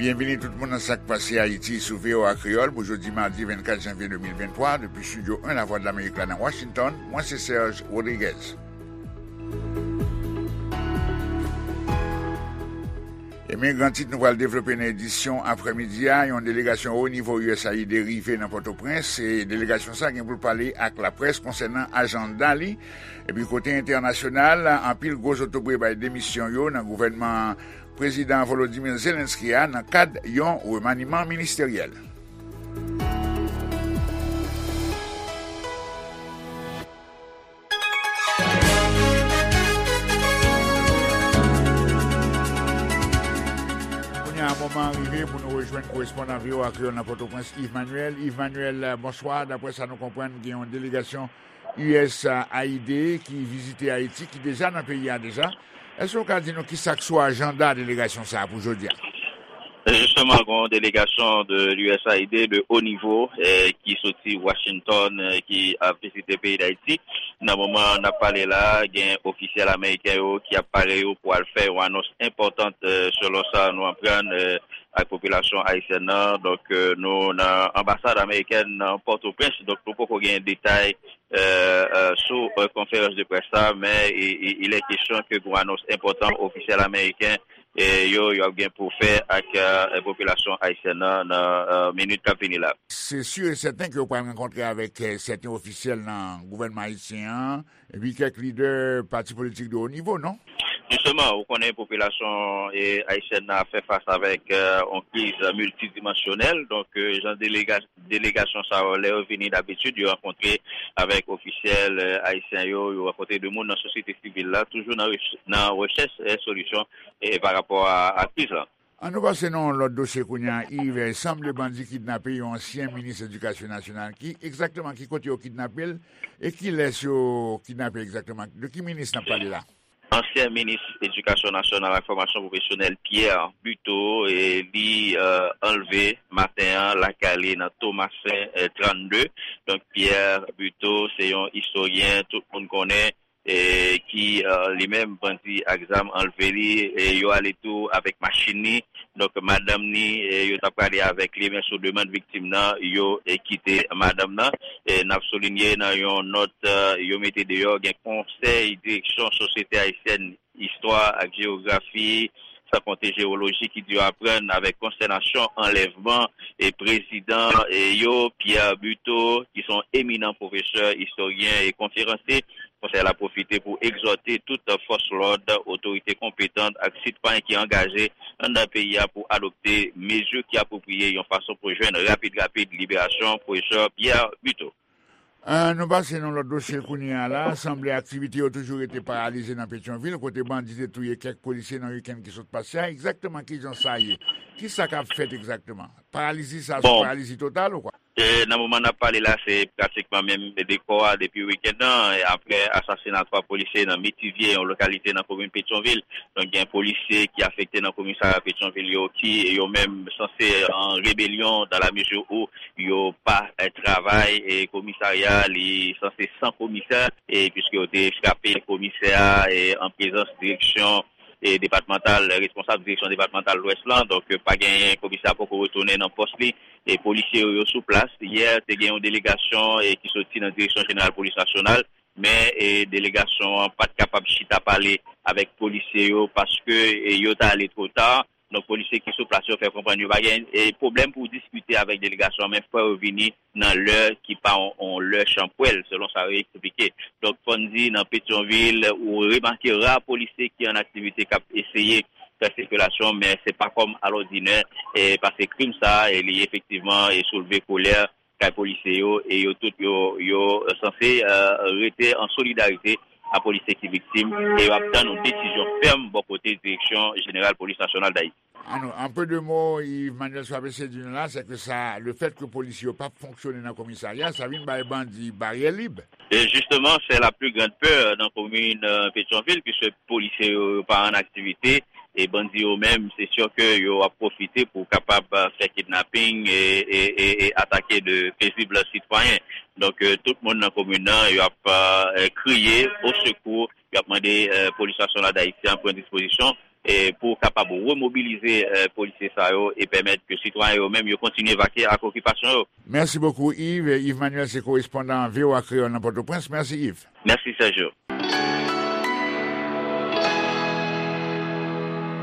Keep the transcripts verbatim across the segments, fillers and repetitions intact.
Byenvini tout moun nan Sa k Pase Ayiti sou V O A Kreyòl pou jodi madi vennkat janvye de mil venntwa, depi estidyo en Lavwadlamerik la nan Washington, mwen se Serge Rodriguez. E men gran tit nou pral devlope nan edisyon aprèmidi a, yon delegasyon wo nivo U S A I D rive nan Pòtoprens, e delegasyon sa gen pou l pale ak laprès konsènan ajanda li. Epi kote entènasyonal, anpil gwo zotobre bay demisyon yo nan gouvènman Prezidan Volodymyr Zelensky a nan kad yon remaniman ministeryèl. Kounye a, moman an rive pou nou rejwenn korespondan V O A Kreyòl nan Pòtoprens, Yves Manuel. Yves Manuel, bonswa. Daprè sa nou konprann, gen yon delegasyon U S A I D ki vizite Ayiti, ki deja nan peyi a deja. Èske w ka di nou ki sa k sou ajanda delegasyon sa a pou jodi a? Jisteman, gen yon delegasyon de U S A I D de haut niveau, eh, ki soti Washington, eh, ki ap vizite peyi Dayiti. Nan moman n ap pale la, gen ofisyèl ameriken yo ki ap pare yo pou al fè yon anons enpòtan, eh, selon sa nou aprann, eh, ak popilasyon ayisyèn nan. Donk, eh, nou nan anbasad amerikèn nan Pòtoprens, donk nou poko gen detay, eh, eh, sou, eh, konferans de près la, men i, i, il est question que gen yon anons enpòtan ofisyèl ameriken, eh, yo, yo ap gen pou fè ak, eh, popilasyon ayisyèn nan, nan, eh, minit k ap vini la. Se si e sèten ke yo pral rankontre avèk, eh, sèten ofisyèl nan gouvènman ayisyen an, epi kèk lidè pati politik de wo nivo, non? Jisteman, ou konnen popilasyon, eh, ayisyèn nan ap fè fas avèk, eh, yon kriz miltidimansyonèl. Donk, eh, jan delega-, delegasyon sa yo, lè yo vini, dabitid, yo rankontre avèk ofisyèl, eh, ayisyen yo, yo rankontre de moun nan sosyete sivil la, toujou nan rech-, nan rechèch, eh, solisyon, eh, pa rapò a, a kriz la. An nou pase nan yon lòt dosye kounye a, Yves. Sanble bandi kidnape yon ansyen minis edikasyon nasyonal. Ki egzakteman, ki kote yo kidnape l? E kilès yo kidnape egzakteman? De ki minis n ap pale la? Ansyen minis edikasyon nasyonal ak fòmasyon pwofesyonèl Pierre Buteau, e li, eh, anlve maten an lakay li nan Tomasen, eh, trannde. Donk, Pierre Buteau se yon istoryen tout moun konnen, e ki, eh, li menm bandi ak zam anlve li, e yo ale tou avèk machin li. Donk, madanm ni, eh, yo t ap prale avèk li, men sou demann viktim nan, yo, eh, kite madanm nan. Eh, n ap soulinye nan yon nòt, eh, yo mete deyò, gen konsèy direksyon Sosyete Ayisyèn Istwa ak Jewografi, san konte Jewoloji, ki di yo aprann avèk konstènasyon anlèvman e prezidan, eh, yo, Pierre Buteau, ki se yon eminan pwofesè, istoryen e konferansye. Konsèy la pwofite pou egzòte tout fòs lòd, otorite konpetan ak sitwayen ki angaje anndan peyi a pou adopte mezi ki apwopriye yon fason pou jwenn rapid rapid liberasyon pwofesè Pierre Buteau. Ah, nou pase nan lòt dosye kounye a la. Sanble aktivite yo toujou rete paralize nan Petyonvil, kote bandi te touye kèk polisye nan wikenn ki sot pase a. Egzakteman kijan sa ye? Kisa k ap fèt egzakteman? Paralizi sa se yon paralizi total ou kwa? E, nan moman n ap pale la, se pratikman menm dekò a depi wikenn nan, e, apre asasina twa polisye nan Metivye, yon lokalite nan komin Petyonvil. Donk, gen polisye ki afekte nan komisarya Petyonvil yo, ki yo menm sanse an rebelyon, dans la mesure où yo pa, e, travay, e komisarya li sanse san komisè, e piske yo te frape komisè a, e an prezans direksyon, e depatmantal, responsab direksyon depatmantal Lwès lan. Donk, pa genyen, komisè a poko retounen nan pòs li. E polisye yo, yo sou plas. Yè, te gen yon delegasyon, e, ki soti nan Direksyon Jeneral Polis Nasyonal, men, e, delegasyon an pa t kapab chita pale avèk polisye yo paske, e, yo t ale twò ta. Donk, polisye ki sou plas yo fè konprann yo pa gen, e, pwoblèm pou diskite avèk delegasyon an, men fò yo vini nan lè ki pa yon, yon lè chanpwèl, selon sa yo eksplike. Donk, fò n di, nan Petyonvil, ou remake ra polisye ki an aktivite k ap eseye fè sikilasyon, men se pa kòm alòdinè, e, paske krim sa a, e, li efektivman, e, soulve kolè kay polisye yo, e yo tout, yo, yo sanse, e, rete an solidarite a polisye ki viktim, e yo ap tann yon desizyon fèm bò kote Direksyon Jeneral Polis Nasyonal Dayiti. An, an pe de mo, Yves Manuel, sa w ap eseye di nou la, se ke sa, le fèt ke polis yo p ap fonksyone nan komisarya, sa vin bay bandi baryè lib. E jisteman, se la pli grann pè nan komin, e, Petyonvil, piske polisye yo, yo pa an aktivite, e bandi yo menm, se si ke yo ap pwofite pou kapab, e, fè kidnaping e, e, e, e atake de pezib sitwayen. Donk, e, tout moun nan komin nan, yo ap, e, kriye o sekou, yo ap mande, e, polis nasyonal dayisyen an pran dispozisyon e pou kapab remobilize eh, polisye sa yo e pèmèt ke sitwayen yo menm yo kontinye vakye ak okipasyon yo. Mèsi bokou, Yves. Yves Manuel se korespondan V O A Kreyòl nan Pòtoprens. Mèsi, Yves. Mèsi, Sergio.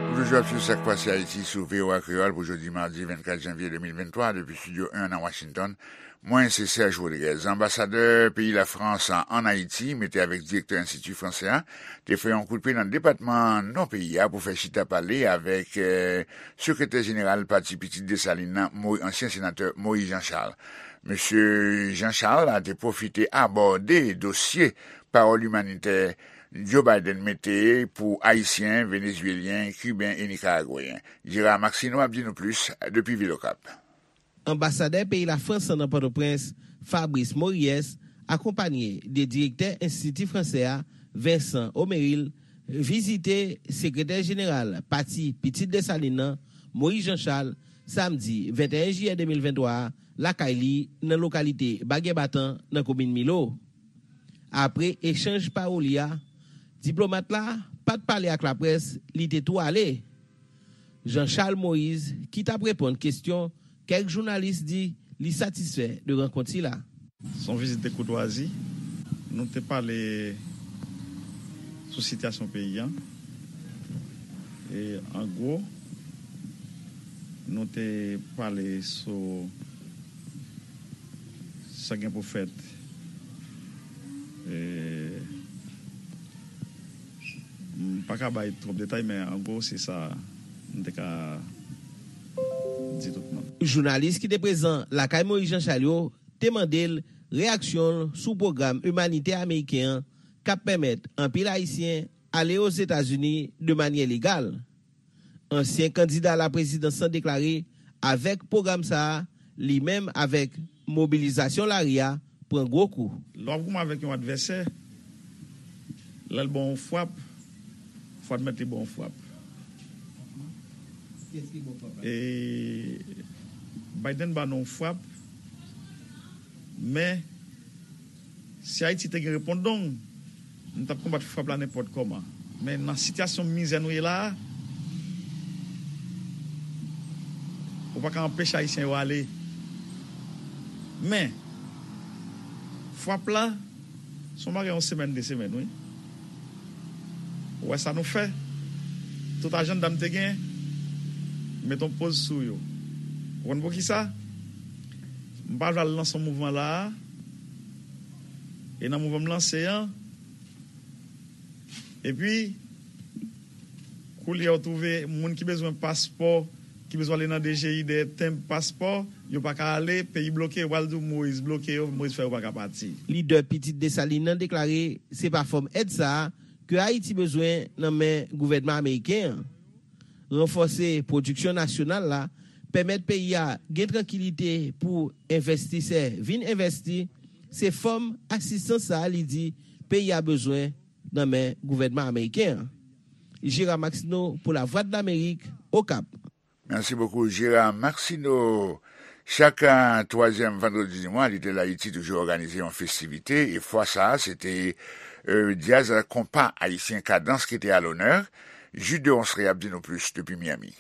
Ou toujou ap swiv Sa k Pase Ayiti sou V O A Kreyòl pou jodi madi vennkat janvye de mil venntwa, depi Estidyo en nan Washington. Mwen, se Serge Rodriguez. Anbasadè peyi Lafrans an Ayiti, mete avèk direktè Enstiti Fransè a, te fè yon kout pye nan depatman Nò peyi a pou fè chita pale avèk eh, sekretè jeneral Pati Pitit Desalin nan, Mo- ansyen senatè Moïse Jean Charles. Mesye Jean Charles la te pwofite abòde dosye pawòl imanitè Joe Biden mete pou Ayisyen, Venezuelyen, Kiben e Nikaragweyen. Gérard Maxineau ap di nou plis depi vil Okap. Anbasadè peyi Lafrans nan Pòtoprens, Fabrice Mories, akonpanye de direktè Enstiti Fransè a, Vincent Omeril, vizite sekretè jeneral Pati Pitit Desalin nan, Moïse Jean Charles, samdi venteyen jiyè de mil venntwa a, lakay li nan lokalite Bagyè Batan nan komin Milo. Apre echanj pawoli a, diplomat la pa t pale ak laprès, li te tou ale. Jean Charles Moïse, ki t ap reponn kesyon kèk jounalis, di li satisfè de rankont sila. Se yon vizit de koutwazi. Nou te pale sou sitiyasyon peyi a. E an gwo, nou te pale sou sa gen pou fèt. E, m pa ka bay twòp detay, men an gwo, se sa m te ka di tout moun. Jounalis ki te prezan lakay Moïse Jean Charles yo te mande l reyaksyon l sou pwogram imanitè ameriken an k ap pèmèt anpil Ayisyen ale Ozetazini de manyè legal. Ansyen kandida laprezidans lan deklare avèk pwogram sa a, li menm avèk mobilizasyon lari a pran gwo kou. Lè w ap goumen avèk yon advèsè, lè l ba w yon frap, fò w admèt li ba w yon frap. Kiyès ki ba w frap la? E Biden ba nou yon frap, men si Ayiti te gen repondong, nou t ap konbat frap la nenpòt kòman. Men nan sitiyasyon mizè nou ye la a, ou pa ka anpeche Ayisyen yo ale. Men, frap la, se yon bagay yon semèn, de semèn, wi. Ou wè sa nou fè? Tout ajanda m te gen, m met yon poz sou yo. Ou konn poukisa? M pa vle al lanse yon mouvman la a. E nan mouvman m lanse an, epi, koulye a ou twouve moun ki bezwen paspò, ki bezwen ale nan D G I dèyè tenb paspò, yo pa ka ale, peyi bloke, yo pral di w Moïse bloke yo, Moïse fè yo pa ka pati. Lidè Pitit Desalin nan deklare se pa fòm èd sa a ke Ayiti bezwen nan men gouvènman ameriken an. Ranfòse pwodiksyon nasyonal la, pèmèt peyi a gen trankilite pou envestisè vin envèsti, se fòm asistans sa a li di peyi a bezwen nan men gouvènman ameriken an. Gérard Maxineau pou Lavwadlamerik, Okap. Mèsi bokou, Gérard Maxineau. Chak eh, twazyèm vandredi di mwa, Little Haiti toujou òganize yon festivite, e fwa sa a, se te eh, djaz konpa ayisyen Kadans ki te a lonè. Jude Deronceray ap di nou plis depi Miami.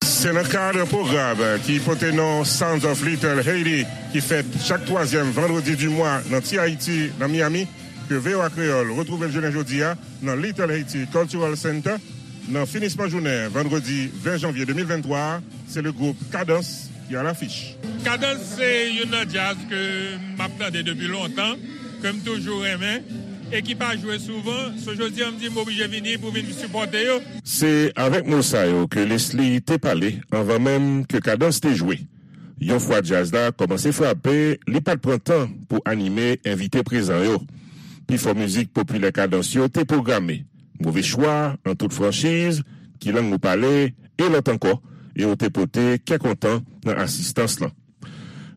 Se nan kad pwogram ki pote non Sounds of Little Haiti, ki fèt chak twazyèm vandredi di mwa nan Ti Ayiti, nan Miami, ke V O A Kreyòl retwouve l jounen jodi a nan Little Haiti Cultural Center. Nan finisman jounen vandredi ven janvye de mil venntwa a, se le gwoup Kadans ki alafich. Kadans se youn nan djaz ke m ap tande depi lontan, ke m toujou renmen, e ki pa jwe souvan. So jodi a m di m oblije vini pou vin sipòte yo. Se avèk mo sa yo ke Leslie te pale anvan menm ke Kadans te jwe. Yon fwa djaz la kòmanse frape, li pa t pran tan pou anime envite prezan yo. Pifò mizik popilè Kadans yo te pwograme. Move chwa, an tout franchiz, Ki lang nou pale, e lòt ankò, e yo te pote kè kontan nan asistans lan.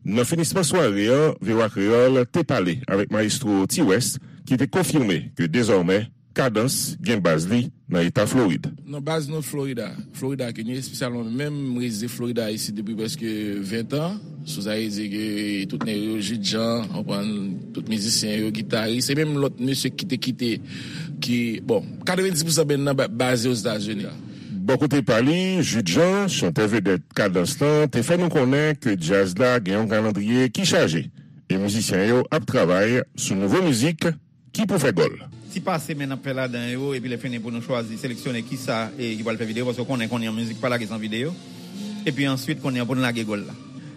Nan finisman sware an, V O A Kreyòl te pale avèk mayestwo T-West, ki te konfime ke dezòmè Kadans gen baz li nan eta Florid. Non, baz nou Florida, Florida ke nou ye, espesyalman menm, m rezide Florida isit depi prèske ven tan. Sou sa vle di ke tout nèg yo, Jude Jean, w konprann, tout mizisyen yo, gitaris, e menm lòt mesye ki te kite, ki, bon, katrevenndis pousan band nan ba- baze Ozetazini. Bò kote pa li, Jude Jean, chantè vedèt Kadans lan, te fè nou konnen ke djaz la gen yon kalandriye ki chaje, e mizisyen yo ap travay sou nouvo mizik ki pou fè gòl. Ti pase men n ap fè ladan yo, epi lè fini pou nou chwazi, seleksyone kisa e ki pral fè videyo, paske w konnen kounye a mizik pa lage san videyo. Epi answit, kounye a pou n lage gòl la.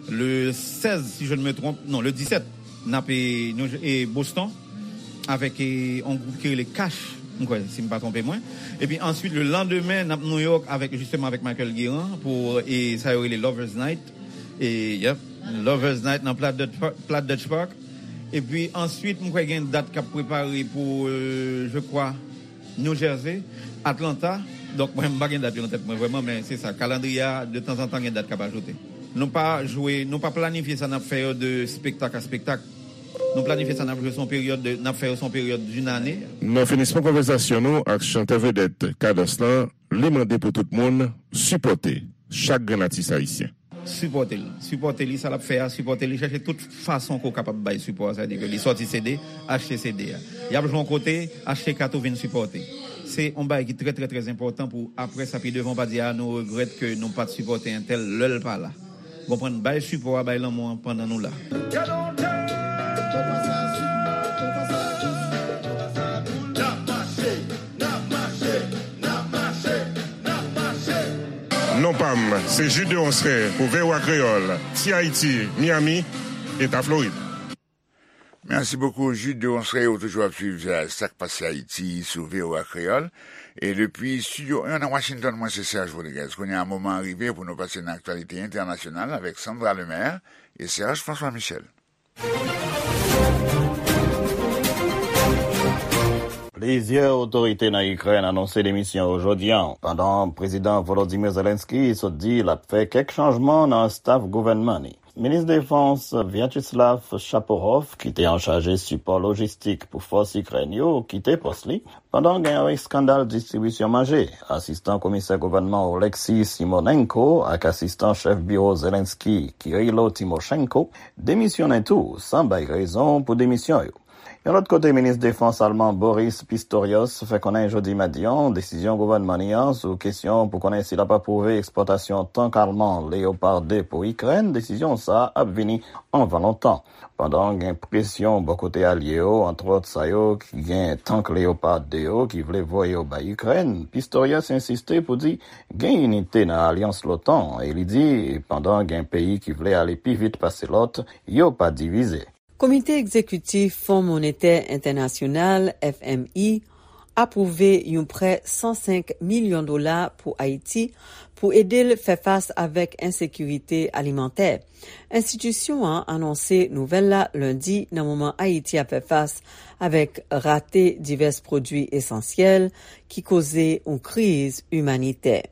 Le sèz, si je ne me trompe, non, le disèt, n ap e, nou, e Boston, avèk e, yon gwoup ki rele Cash, m kwè, si m pa twonpe mwen. Epi answit, le landemen, n ap New York avèk, jisteman, avèk Michael Guérin pou e, sa yo rele Lovers Night. E, yep, Lovers Night nan Platt Dutch Park. Platt Dutch Park. Epi answit, m kwè gen dat k ap prepare pou, euh, je crois, New Jersey, Atlanta. Donk, mwen, m pa gen dat yo nan tèt mwen vrèman, men se sa. Kalandriye a, de tanzantan, gen dat k ap ajoute. Nou pa jwe, nou pa planifye sa n ap fè yo de spektak a spektak. Nou planifye sa n ap jwe sou yon peryòd de, n ap fè yo sou yon peryòd d'une année. Nan finisman konvèsasyon nou ak chantè vedèt Kadans lan, li mande pou tout moun sipòte chak grenn atis ayisyen. Sipòte l. Sipòte li, sa l ap fè a, sipòte li, chèche tout fason ke w kapab bay sipò a, sa vle di ke li sòti C D, achte C D a. Y ap jwe yon kote, achte kat ou vin sipòte. Se yon bagay ki trè, trè, trè enpòtan pou apre sa, pi devan, w pa di, "A, nou regrèt ke nou pa t sipòte entèl lè l pa la." Konprann, bay sipò a, bay lanmou an pandan nou la. Non pa m, se Jude Deronceray pou V O A Kreyòl, Ti Ayiti, Miami, Eta Florid. Mèsi bokou, Jude Deronceray, ou toujou ap swiv, euh, sa k pase Ayiti sou V O A Kreyòl. E depi Estidyo en nan Washington, mwen se Serge Rodriguez. Kounye a, moman an rive pou nou pase nan aktyalite entènasyonal avèk Sandra Lemaire e Serge François Michel. Plizyè otorite nan Ikrèn anonse demisyon yo jodi a, pandan Prezidan Volodymyr Zelensky sot di l ap fè kèk chanjman nan staf gouvènman li. Minis Defans Vyacheslav Shapovalov, ki te anchaje sipò lojistik pou fòs Ikrèn yo, kite pòs li, pandan gen yon eskandal distribisyon manje. Asistan komisè gouvènman Oleksiy Simonenko ak asistan chèf biwo Zelensky, Kyrylo Timoshenko, demisyonnen tou, san bay rezon pou demisyon yo. Yon lòt kote, minis defans alman Boris Pistorius fè konnen jodi madi a desizyon gouvènman li an sou kesyon pou konnen si l ap apwouve ekspòtasyon tank alman Leopard de pou Ikrèn, desizyon sa a ap vini anvan lontan. Pandan gen presyon bò kote alye yo, antwòt sa yo ki gen tank Leopard de yo ki vle voye yo bay Ikrèn, Pistorius ensiste pou di gen inite nan alyans l'OTAN e li di pandan gen peyi ki vle ale pi vit pase lòt, yo pa divize. Komite Egzekitif Fon Monetè Entènasyonal, F M I, apwouve yon prè san senk milyon dola pou Ayiti pou ede l fè fas avèk ensekirite alimantè. Enstitisyon an anonse nouvèl la lendi nan moman Ayiti ap fè fas avèk rate divès pwodui esansyèl ki koze yon kriz imanitè.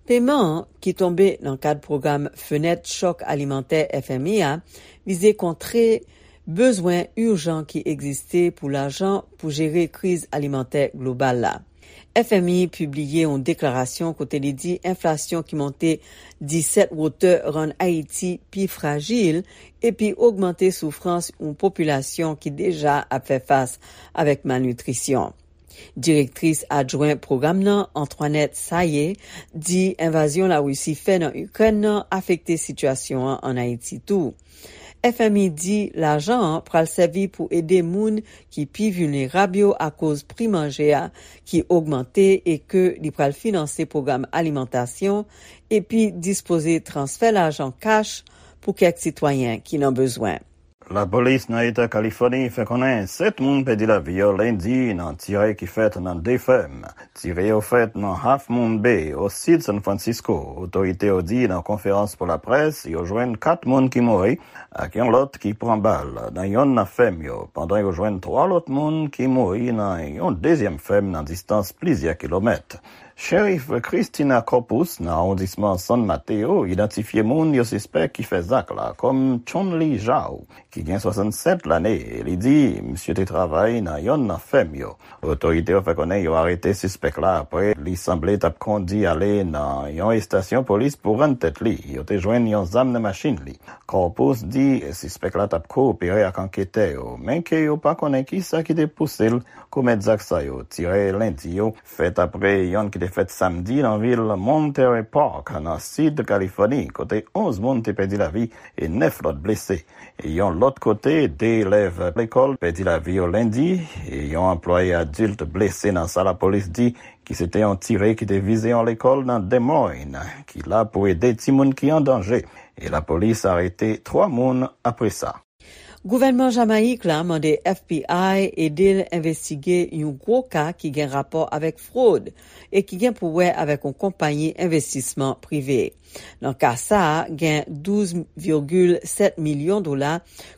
Peman an, ki tonbe nan kad pwogram Fenèt Chòk Alimantè F M I a, vize kontre bezwen ijan ki egziste pou lajan pou jere kriz alimantè global la. F M I pibliye yon deklarasyon kote li di enflasyon ki monte disèt wotè rann Ayiti pi frajil epi ogmante soufrans yon popilasyon ki deja ap fè fas avèk malnitrisyon. Direktris adjwen pwogram nan, Antoinette Sayé, di envazyon Larisi fè nan Ikrèn nan afekte sitiyasyon an ann Ayiti tou. F M I di lajan an pral sèvi pou ede moun ki pi vilnerab yo akoz pri manje a ki ogmante e ke li pral finanse pwogram alimantasyon epi dispoze transfè lajan kach pou kèk sitwayen ki nan bezwen. Lapolis nan Eta Kalifòni fè konnen sèt moun pèdi lavi yo lendi nan tire ki fèt nan de fèm. Tire yo fèt nan Half Moon Bay, o sid San Francisco. Otorite yo di nan konferans pou laprès, yo jwenn kat moun ki mouri ak yon lòt ki pran bal nan yonn nan fèm yo, pandan yo jwenn twa lòt moun ki mouri nan yon dezyèm fèm nan distans plizyè kilomèt. Sheriff Christina Corpus nan awondisman San Mateo idantifye moun yo sispèk ki fè zak la kòm Chun Li Zhao, ki gen swasannsèt lane, e li di misye te travay nan yonn nan fèm yo. Otorite yo fè konnen yo arete sispèk la apre li sanble t ap kondi ale nan yon estasyon polis pou rann tèt li. Yo te jwenn yon zam nan machin li. Corpus di sispèk la t ap koopere ak anketè yo, men ke yo pa konnen kisa ki te pouse l komèt zak sa yo. Tire lendi yo fèt apre yonn ki te fèt samdi nan vil Monterey Park, nan sid Kalifòni, kote onz moun te pèdi lavi e nèf lòt blese. E yon lòt kote, de elèv lekòl pèdi lavi yo lendi, e yon anplwaye adilt blese nan sa lapolis di ki se te yon tire ki te vize yon lekòl nan Des Moines, ki la pou ede timoun ki an danje. E lapolis arete twa moun apre sa. Gouvènman Jamayik la mande F B I ede l envestige yon gwo ka ki gen rapò avèk fwod e ki gen pou wè avèk yon konpayi envestisman prive. Nan ka sa a, gen douz virgil sèt milyon dola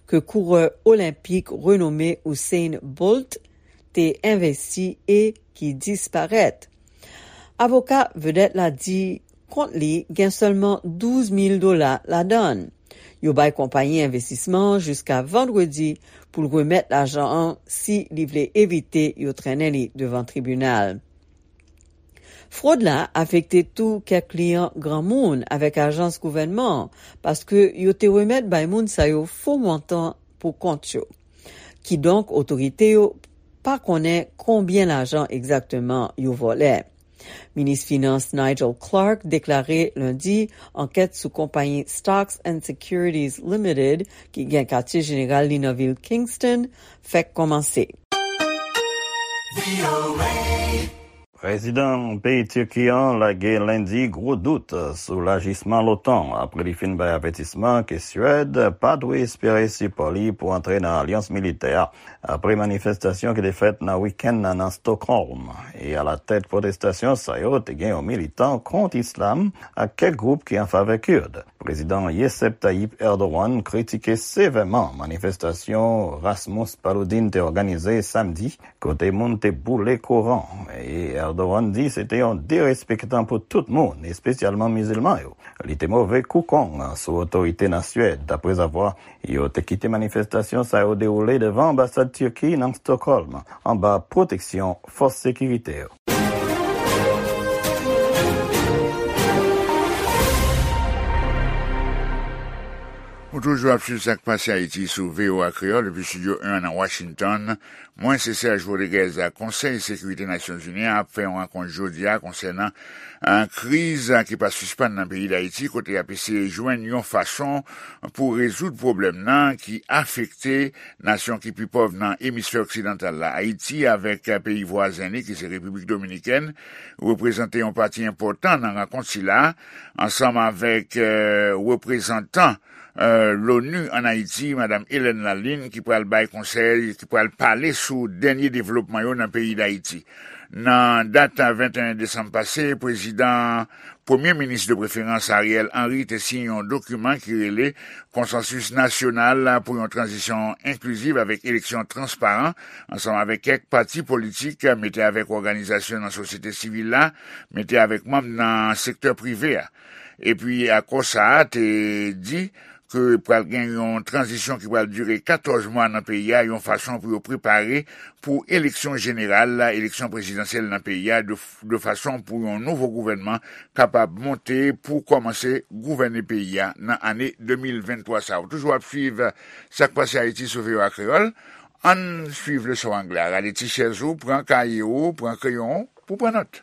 ke kourè olenpik renome Usain Bolt te envesti e ki disparèt. Avoka vedèt la di kont li gen sèlman douz mil dola ladan l. Yo bay konpayi envestisman an jiska vandredi pou l remèt lajan an si li vle evite yo trennen li devan tribinal. Fwod la afekte tou kèk kliyan granmoun avèk ajans gouvènman an, paske yo te remèt bay moun sa yo fo montan pou kont yo. Kidonk, otorite yo pa konnen konbyen lajan egzakteman yo vòlè. Minis Finans Nigel Clarke deklare lendi ankèt sou konpayi Stocks and Securities Limited, ki gen katye jeneral li nan vil Kingston, fèk kòmanse. Prezidan peyi Tiki an lage lendi gwo dout sou lajisman l'OTAN apre li fin bay avètisman ke Swèd pa dwe espere sipò li pou antre nan alyans militè a apre manifestasyon ki te fèt nan wikenn nan nan Stockholm. E alatèt pwotestasyon sa yo te gen yon militan kont islam ak kèk gwoup ki an favè Kird. Prezidan Recep Tayyip Erdogan kritike sevèman manifestasyon Rasmus Paludan te òganize samdi, kote moun te boule Koran. E Erdogan di se te yon derespektan pou tout moun, espesyalman mizilman yo. Li te move kou kong sou otorite nan Swèd, daprezavwa yo te kite manifestasyon sa yo dewoule devan anbasad Tiki nan Stockholm, anba pwoteksyon fòs sekirite yo. Ou toujou ap swiv Sa k Pase Ayiti sou V O A Kreyòl depi Estidyo en nan Washington. Mwen se Serge Rodriguez. Konsèy Sekirite Nasyonzini an ap fè yon rankont jodi a konsènan, eh, kriz ki pa sispann nan peyi Dayiti, kote y ap eseye jwenn yon fason pou rezoud pwoblèm nan ki afekte nasyon ki pi pòv nan emisfè oksidantal la. Ayiti avèk, eh, peyi vwazen li, ki se Repiblik Dominikèn, reprezante yon pati enpòtan nan rankont sila, ansanm avèk, eh, reprezantan, eh, l'ONU ann Ayiti, Madam Hélène Lalin, ki pral bay konsèy, ki pral pale sou dènye devlopman yo nan peyi Dayiti. Nan dat venteyen desanm pase, prezidan, premye minis de preferans Ariel Henry te siyen yon dokiman ki rele Konsansis Nasyonal pou yon Tranzisyon Enkliziv avèk Eleksyon Transparan, ansanm avèk kèk pati politik, mete avèk òganizasyon nan sosyete sivil la, mete avèk manm nan sektè prive a. Epi akò sa a te di ke pral gen yon tranzisyon ki pral dire katòz mwa nan peyi a, yon fason pou yo prepare pou eleksyon jeneral la, eleksyon prezidansyèl nan peyi a, de, de fason pou yon nouvo gouvènman kapab monte pou kòmanse gouvène peyi a nan ane de mil venntwa sa a. Ou toujou ap swiv Sa k Pase Ayiti sou V O A Kreyòl. Ann swiv leson anglè a. Rale ti chèz ou, pran kaye ou, pran kreyon ou pou pran nòt.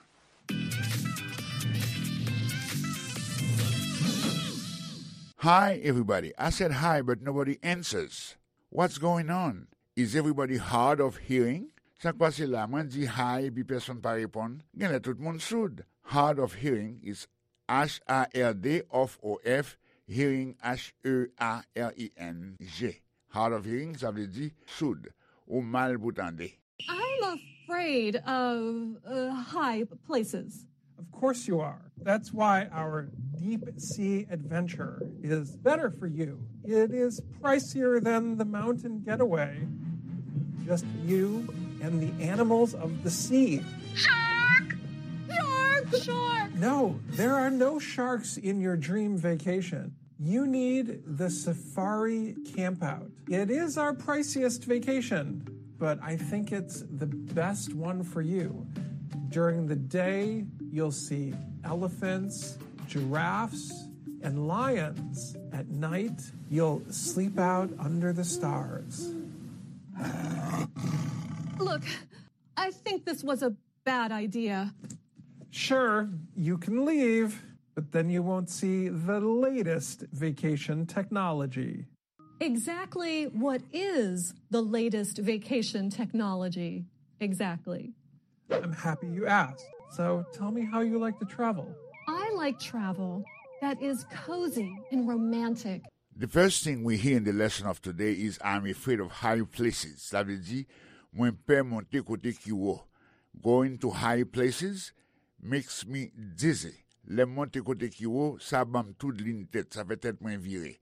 Hi, everybody. I said hi, but nobody answers. What's going on? Is everybody hard of hearing? Sa k pase la? Mwen di hi, epi pèsonn pa reponn. Genlè tout moun soud. Hard of hearing is H A R D of, O F, hearing, H E A R I N G. Hard of hearing, sa vle di soud, ou mal pou tande. I'm afraid of uh, high places. Of course you are. That's why our deep sea adventure is better for you. It is pricier than the mountain getaway. Just you and the animals of the sea. Shark! Shark! Shark! No, there are no sharks in your dream vacation. You need the safari campout. It is our priciest vacation, but I think it's the best one for you. During the day, you'll see elephants, giraffes, and lions. At night, you'll sleep out under the stars. Look, I think this was a bad idea. Sure, you can leave, but then you won't see the latest vacation technology. Exactly what is the latest vacation technology? Exactly. I'm happy you asked. So tell me how you like to travel. I like travel that is cozy and romantic. The first thing we hear in the lesson of today is I'm afraid of high places. Sa vle di, mwen pè monte kote ki wo. Going to high places makes me dizzy. Lè m monte kote ki wo, sa ban m toudlin tèt, sa fè tèt mwen vire.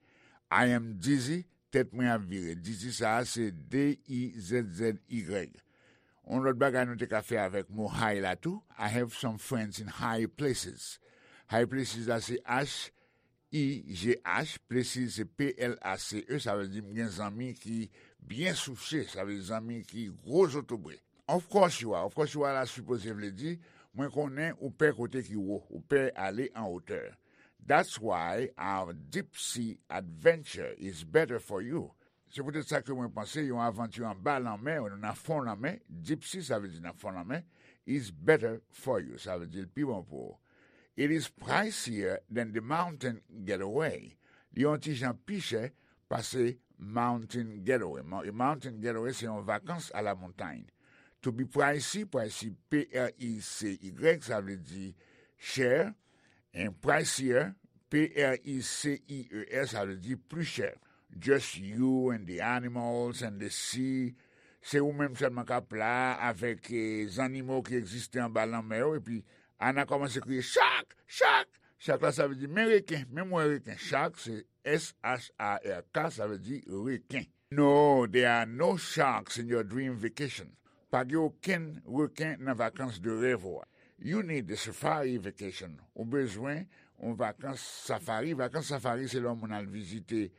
I am dizzy, tèt mwen ap vire. Dizzy sa a se D I Z Z Y. Yon lòt bagay nou te ka fè avèk mo high la tou, I have some friends in high places. High places la se H I G H, places se P L A C E, sa vle di m gen zanmi ki byen souche, sa vle di zanmi ki gwo zotobre. Of course you are, of course you are la sipoze vle di, mwen konnen ou pè kote ki wo, ou pè ale an wotè. That's why our deep sea adventure is better for you. Se poutèt sa ke mwen panse yon avanti anba lanmè, ou nan fon lanmè, deep sea sa vle di nan fon lanmè, is better for you, sa vle di l pi bon pou ou. It is pricier than the mountain getaway. Li yon ti jan pi chè pase mountain getaway. Mo- Mountain getaway se yon vakans a la montagne. To be pricey, pricey, P R I C Y, sa vle di chè, and pricier, P R I C I E R, sa vle di pli chè. Just you and the animals and the sea. Se ou menm sèlman k ap la avèk eh, zannimo ki egziste anba lanmè yo, epi Ana kòmanse kriye, "Shark! Shark!" Shark la sa vle di, "Men reken, men mwen reken." Shark se S H A R K, sa vle di reken. No, there are no sharks in your dream vacation. Pa gen okenn reken nan vakans de rèv ou a. You need a safari vacation. Ou bezwen yon vakans safari. Vakans safari se lè yon moun al vizite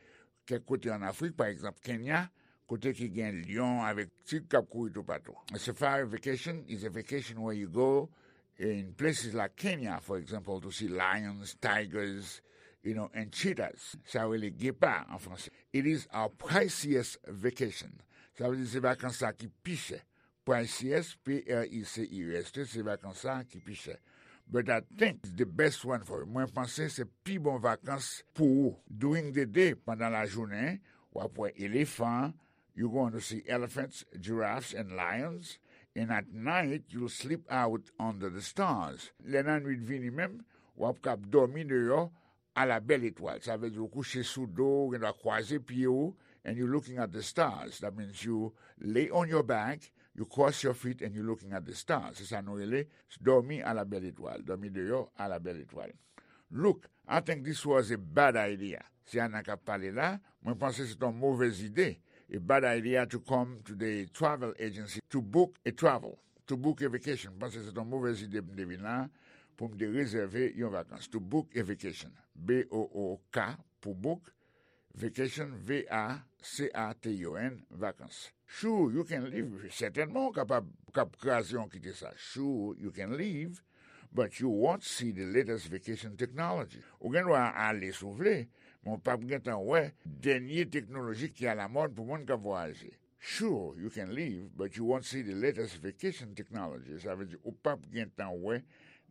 kèk kote an Afrik, pa egzanp Kenya, kote ki gen lyon avèk tig k ap kouri toupatou. A safari vacation is a vacation where you go in places like Kenya, for example, to see lions, tigers, you know, and cheetahs. Sa yo rele gepa an franse. It is our priciest vacation. Sa vle di se vakans sa ki pi chè. Priciest, P R I C I E S T, se vakans sa ki pi chè. But I think it's the best one for you. Mwen panse se pi bon vakans pou ou. During the day, pandan lajounen, w ap wè elefan, you going to see elephants, giraffes and lions, and at night you'll sleep out under the stars. Lè nan nwit vini menm, w ap kab dòmi deyò a la bèl etwal. Sa vle di ou kouche sou do, ou gen dwa kwaze pye ou, and you looking at the stars. That means you lay on your back, you cross your feet and you looking at the stars. Se sa nou rele dòmi a la bèl etwal, dòmi deyò a la bèl etwal. Look, I think this was a bad idea. Se Ana k ap pale la, mwen panse se yon movèz ide. A bad idea to come to the travel agency to book a travel, to book a vacation. Mwen panse se yon movèz ide pou m te vin la, pou m te rezève yon vakans. To book a vacation. B O O K pou book, vacation, V A C A T I O N, vakans. Sure, you can leave. Sètènman, ou kapab k ap kraze yon kite sa. Sure, you can leave, but you won't see the latest vacation technology. Ou gen dwa ale si w vle, men w p ap gentan wè dènye teknoloji ki alamòd pou moun k ap vwayaje. Sure, you can leave, but you won't see the latest vacation technology. Sa vle di ou p ap gentan wè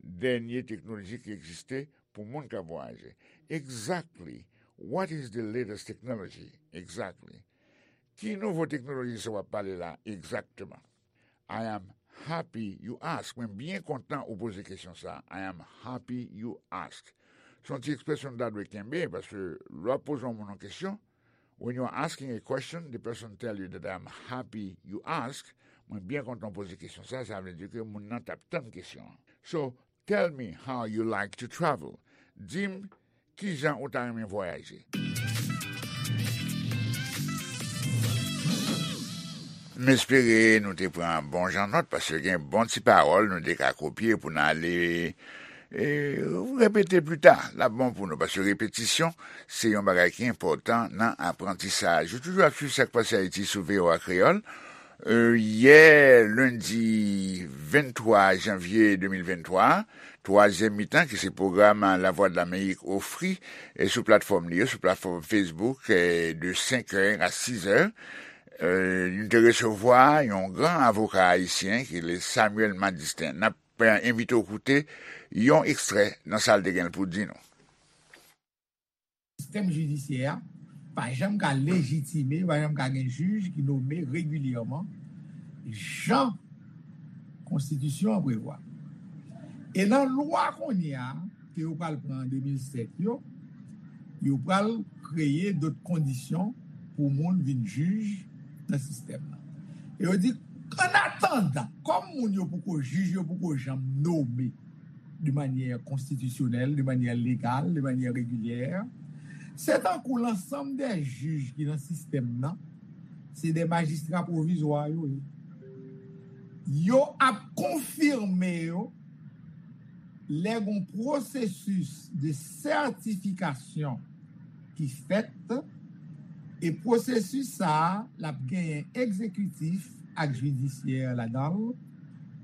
dènye teknoloji ki egziste pou moun k ap vwayaje. Exactly. What is the latest technology? Exactly. Ki nouvo teknoloji sa w ap pale la egzakteman? I am happy you ask. Mwen byen kontan ou poze kesyon sa. I am happy you ask. Se yon ti ekspresyon nou ta dwe kenbe, paske lè w ap poze yon moun yon kesyon, when you are asking a question, the person tell you that I am happy you ask. Mwen byen kontan w poze kesyon sa, sa vle di ke moun nan t ap tann kesyon an. So, tell me how you like to travel. Di m kijan ou ta renmen vwayaje. M espere nou te pran bon jan nòt, paske gen bon ti pawòl nou te ka kopye pou n ale e, repete pli ta. L ap bon pou nou, paske repetisyon se yon bagay ki enpòtan nan aprantisaj. Ou toujou ap swiv Sa k Pase Ayiti sou V O A Kreyòl. E, yè, lendi venntwa janvye de mil venntwa, twazyèm mitan ki se pwogram Lavwadlamerik ofri e sou platfòm li yo, sou platfòm Facebook, e, de senkè a sizè, e, nou te resevwa yon gran avoka ayisyen ki rele Samuel Madistin. N ap envite w koute yon ekstrè nan sa l te gen pou di nou. Sistèm jidisyè a pa janm ka lejitime, pa janm ka gen jij ki nome regilyèman, jan konstitisyon an prevwa. E nan lwa kounye a, ke yo pral pran an de mil sèt yo, yo pral kreye dòt kondisyon pou moun vin jij nan sistèm nan. E yo di, an atandan, kòm moun yo poko jij, yo poko janm nome de manyè konstitisyonèl, de manyè legal, de manyè regilyè, se tankou lansanm dè jij ki nan sistèm nan, se dè majistra pwovizwa yo ye. Yo ap konfime yo lè gon pwosesis de sètifikasyon ki fèt, e pwosesis sa a, l ap genyen egzekitif ak jidisyè ladan l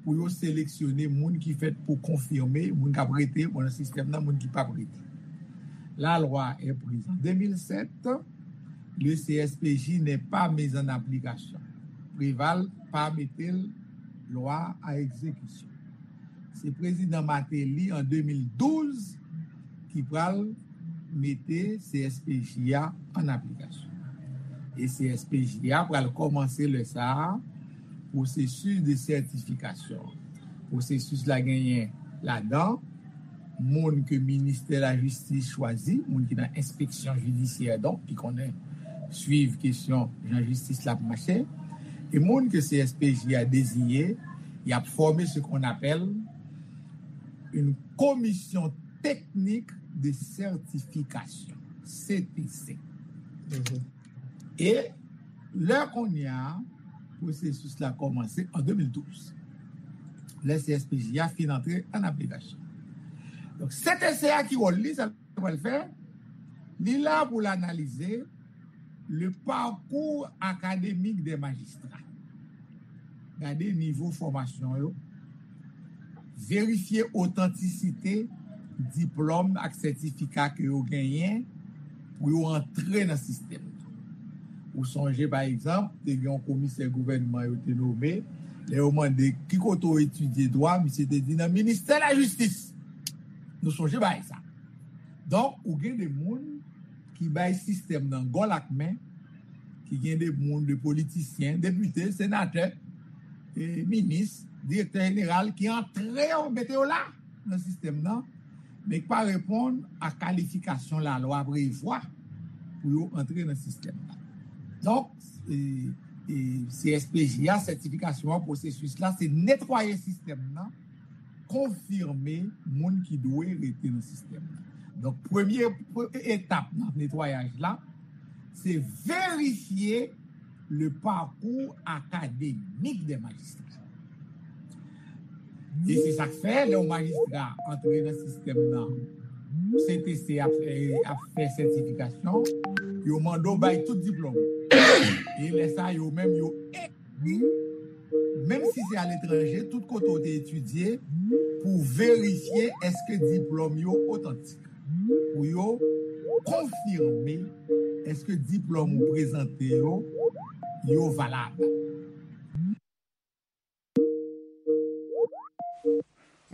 pou yo seleksyone moun ki fèt pou konfime, moun k ap rete nan sistèm nan, moun ki p ap rete. La loi est prise en deux mille sept, le C S P J n'est pas mis en application. Préval pa mete l lwa a egzekisyon. Se prezidan Martelly an de mil douz ki pral mete C S P J a an aplikasyon. E C S P J a pral kòmanse lè sa a pwosesis de sètifikasyon. Pwosesis la genyen ladan moun ke ministè lajistis chwazi, moun ki nan enspeksyon jidisyè, donk, ki konnen swiv kesyon jan jistis la ap mache, e moun ke C S P J a deziye, y ap fòme ce qu'on appelle une commission technique de certification, C T C. E lè kounye a, pwosesis la kòmanse an de mil douz. Lè C S P J a fin antre an aplikasyon. Donk, C T C a ki wòl li, sa l pral fè, li la pou l analize le parcours académique des magistrats. Gade nivo fòmasyon yo, verifye otantisite diplòm ak sètifika ke yo genyen pou yo antre nan sistèm nan. Ou sonje, pa egzanp, te gen yon komisè gouvènman yo te nome, lè yo mande ki kote w etidye dwa, misye te di nan ministè lajistis. Nou sonje bagay sa. Donk, ou gen de moun ki bay sistèm nan gòl ak men, ki gen de moun, de politisyen, depite, senatè, e minis, direktè jeneral ki antre yo, mete yo la nan sistèm nan, men ki pa reponn a kalifikasyon lalwa prevwa pou yo antre nan sistèm nan. Donk, e, e, C S P J a, sètifikasyon an, pwosesis la, se netwaye sistèm nan, konfime moun ki dwe rete nan sistèm nan. Donk, premye, premye etap nan netwayaj la, se verifye le parcours académique des magistrats. E se sa k fè, lè yon majistra antre nan sistèm nan, C T C ap fè, ap fè sètifikasyon, yo mande w bay tout diplòm. E lè sa, yo menm, yo ekri, menm si se aletranje, tout kote w te etidye, pou verifye èske diplòm yo otantik. Pou yo konfime èske diplòm ou prezante yo, yo valab.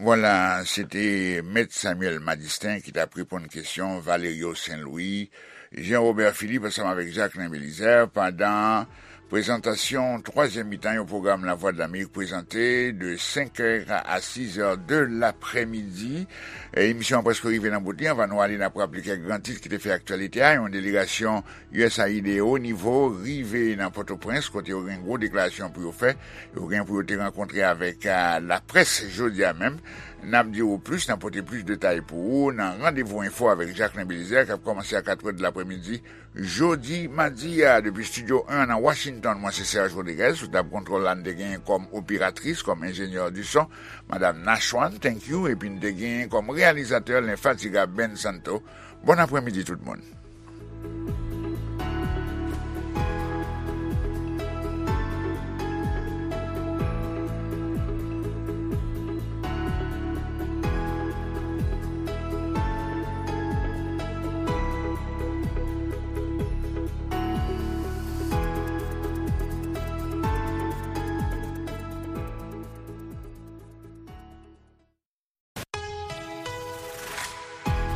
Vwala, se te Mèt Samuel Madistin ki t ap reponn kesyon Valerio Saint Louis, Jean Robert Philippe ansanm avèk Jacquelin Belizaire pandan prezantasyon twazyèm mitan yon pwogram Lavwadlamerik prezante de senk è a sis è de laprèmidi. E, emisyon an prèske rive nan bout li. Anvan nou ale, n ap raple kèk gran tit ki te fè aktyalite a. Yon delegasyon U S A I D o nivo rive nan Pòtoprens, kote yo gen gwo deklarasyon pou yo fè. Yo gen pou yo te rankontre avèk, a, laprès jodi a menm. N ap di w plis, n ap pote plis detay pou ou nan Randevou Enfo avèk Jacquelin Belizaire, k ap kòmanse a katrè de laprèmidi jodi madi a. Depi Estidyo en nan Washington, mwen se Serge Rodriguez, sou tab kontwòl la, n te genyen kòm operatris, kòm enjenyè di son, Madam Nashwan, thank you, epi n te genyen kòm reyalizatè lenfatigab Ben Santo. Bon aprèmidi tout moun.